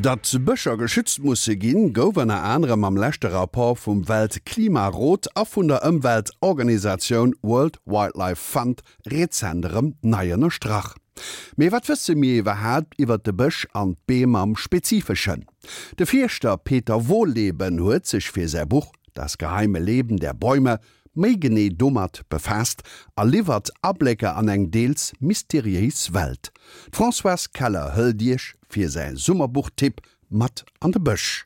Datt Bëscher geschützt musse ginn, gouf ënner anerem am leschte Rapport vum Weltklimarot a vun der Ëmweltorganisatioun World Wildlife Fund rezent erëm nei ënnerstrach. Mee wat wësse mir iwwerhaapt iwwert de Bësch an d'Beem am Spezifeschen? De Fierschter Peter Wohlleben huet sech fir säi Buch Das geheime Leben der Bäume méi genee domat befaasst a liwwert Ablécker an eng deels mysteriéis Welt. D'Françoise Keller hëlt Iech fir säi Summerbuchtipp mat an de Bësch.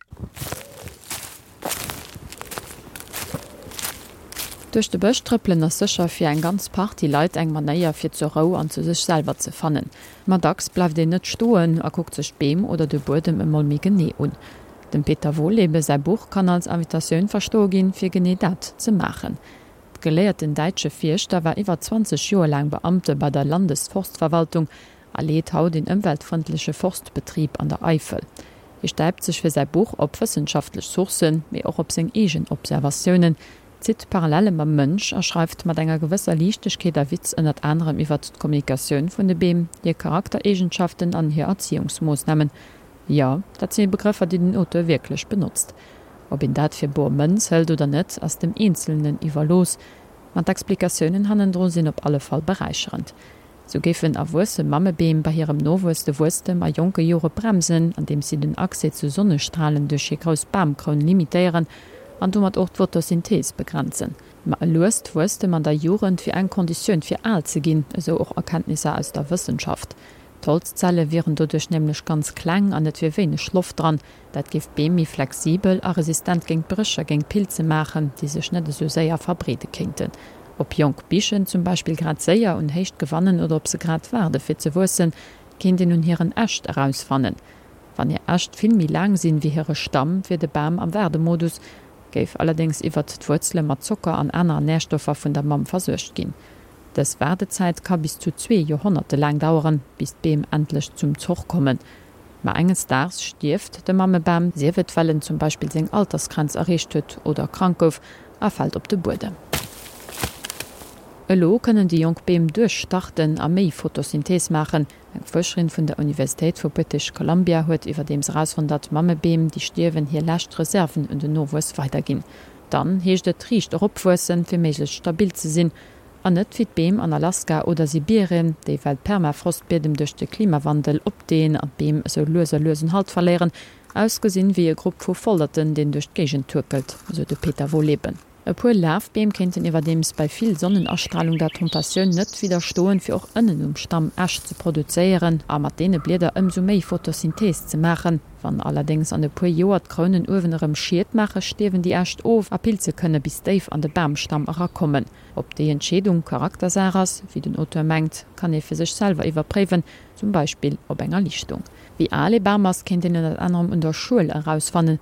Duerch de Bësch trëppelen ass sécher fir eng ganz Partie Leit eng Manéier fir zur Rou an zu sech selwer ze fannen. Ma dacks bleift een net stoen a kuckt sech d'Beem oder de Buedem emol méi genee un. Dem Peter Wohllebe säi Buch kann als Invitatioun verstoe ginn, fir genee dat ze maachen. De geléierten däitsche Fierschter war iwwer 20 Joer laang Beamte bei der Landesforstverwaltung a leet haut een ëmweltfrëndleche Forstbetrib an der Eifel. Hie stäipt sech fir säi Buch op wëssenschaftlech Sourcen, mee och op seng eegen Observatiounen, zitt Parallele mam Mënsch a schreift mat enger gewësser Liichtegkeet a Witz ënnert anerem iwwert d'Kommunikatioun vun de Beem, hir Charaktereegenschaften an hir Erziehungsmoossnamen. Jo, dat si Begrëffer, déi den Auteur wierklech benotzt. Ob een dat fir bor Mënz hëlt oder net, ass dem Eenzelnen iwwerlooss, ma d'Explikatiounen hannendru sinn op alle Fall beräicherend. Sou géifen erwuesse Mammebeem bei hirem Nowuess de Wuesstem a jonke Jore bremsen, andeems si den Accès zu Sonnestralen duerch hir grouss Bamkroun limitéieren an domat och d'Photosynthees begrenzen. Ma e luest Wuesstem an der Jugend wier eng Konditioun fir al ze ginn, esou och Erkenntnisser aus der Wëssenschaft. D'Holzzelle wieren doduerch nämlech ganz kleng an et wier wéineg Loft dran. Dat géif d'Beem méi flexibel a resistent géint Bréch a géint Pilze maachen, déi sech net esou séier verbreede kéinten. Ob jonk Bichen zum Beispill grad séier un Héicht gewannen oder ob se grad waarde fir ze wuessen, kéint een un hiren Äscht erausfannen. Wann hir Äscht vill méi laang sinn wéi hire Stamm, wier de Bam am Waardemodus, géif allerdéngs iwwert d'Wuerzele mat Zocker an aner Närstoffer vun der Mamm versuergt ginn. Dës Waardezäit ka bis zu zwee Joerhonnerte laang daueren, bis d'Beem endlech zum Zoch kommen. Ma enges Daags stierft de Mammebam, sief et well en zum Beispill seng Altersgrenz erreecht huet oder krank gouf, a fält op de Buedem. Elo kënnen déi jonk Beem duerchstarten a méi Photosynthees maachen. Eng Fuerscherin vun der Universitéit vu British Columbia huet iwwerdeems erausfonnt, datt Mammebeem, déi stierwen, hir lescht Reserven un den Nowuess weiderginn. Dann heescht et riicht eropwuessen, fir méiglechst stabil ze sinn. An net wéi d'Beem an Alaska oder Sibirien, déi well d'Permafrostbiedem duerch de Klimawandel opdeen an d'Beem esou lues a lues un Halt verléieren, ausgesinn wéi e Grupp vu Volderten, deen duerch d'Géigend tuerkelt, esou de Peter Wohlleben. E puer Lafbeem kéinten iwwerdeems bei vill Sonnenastralung der Tentatioun net widderstoen, fir och ënnen um Stamm Äscht ze produzéieren a mat deene Blieder ëmsou méi Photosynthees ze maachen. Wann allerdéngs an e puer Joer d'Krounen uewen erëm Schied maachen, stierwen déi Äscht of a Pilze kënne bis déif an de Bamstamm erakommen. Ob déi Entscheedung Charaktersaach ass, wéi den Auteur mengt, kann ee fir sech selwer iwwerpréiwen, zum Beispill op enger Lichtung. Wéi al ee Bam ass, kéint een ënnert anerem un der Schuel erausfannen.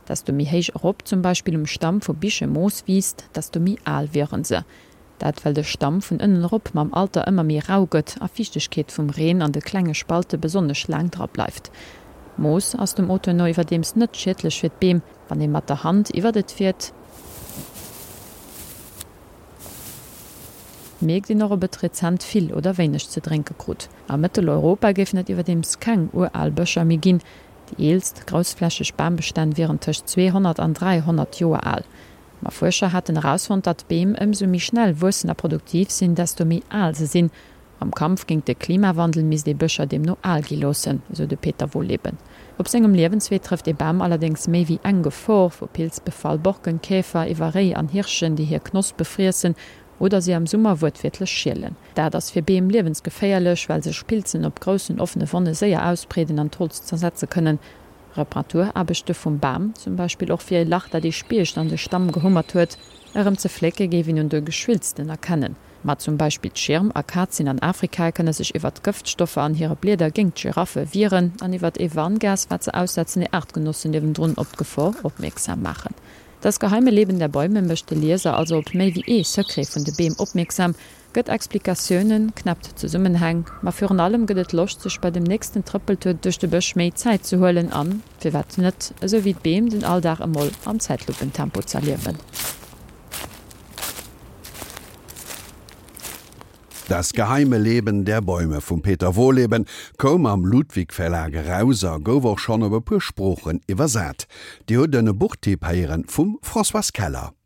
Desto méi héich erop zum Beispill um Stamm vu Biche Moos wiisst, desto méi al wieren se. Dat well de Stamm vun ënnen erop mam Alter ëmmer méi rau gëtt a Fiichtegkeet vum Reen an de klenge Spalte besonnesch laang dra bleift. Moos ass dem Auteur no iwwerdeems net schiedlech fir d'Beem. Wann ee mat der Hand iwwert et fiert, mierkt een och ob et rezent vill oder wéineg ze drénke krut. A Mëtteleuropa géifen et iwwerdeems keng ural Bëscher méi ginn, Déi eelst groussflächeg Bambestänn wieren tëscht 200 an 300 Joer al. Ma Fuerscher haten erausfonnt, datt Beem ëmsou méi schnell wuessen a produktiv sinn, desto méi al se sinn. Am Kampf géint de Klimawandel misst ee Bëscher deemno al gi loossen, esou de Peter Wohlleben. Op sengem Liewenswee trëfft ee Bam allerdéngs méi wéi eng Gefor, vu Pilzbefall, Borkenkäfer iwwer Réi an Hirschen, déi hir Knospe friessen oder si am Summer wuertwiertlech schielen. Dat ass fir Beem liewensgeféierlech, well sech Pilzen op groussen offene Wonne séier ausbreeden an d'Holz zersetze kënnen. Reparaturaarbechte vum Bam, zum Beispill och fir e Lach, dat ee Spiecht an de Stamm gehummert huet, erëm ze flécke géif een un de Geschwülsten erkennen. Ma zum Beispill d'Schirmakazien an Afrika kënne sech iwwert d'Gëftstoffer an hire Blieder géingt d'Giraffe wieren an iwwert ee Warngas, wat se aussetzen, hir Aartgenossen niewendrun op d'Gefor opmierksam maachen. Das geheime Leben der Bäume mécht de Lieser also op méi wéi ee Secret vun de Beem opmierksam, gëtt Explikatiounen, knäppt Zesummenhäng, ma virun allem gëtt et Loscht sech bei dem nächsten Trëppeltour duerch de Bësch méi Zäit ze huelen an, firwat net, esou wéi d'Beem, den Alldag emol am Zäitluppentempo z'erliewen. Das geheime Leben der Bäume vum Peter Wohlleben koum am Ludwig Verlag eraus a gouf och schonn op e puer Sproochen iwwersat. Dir hutt en Buchtipp héieren vum Françoise Keller.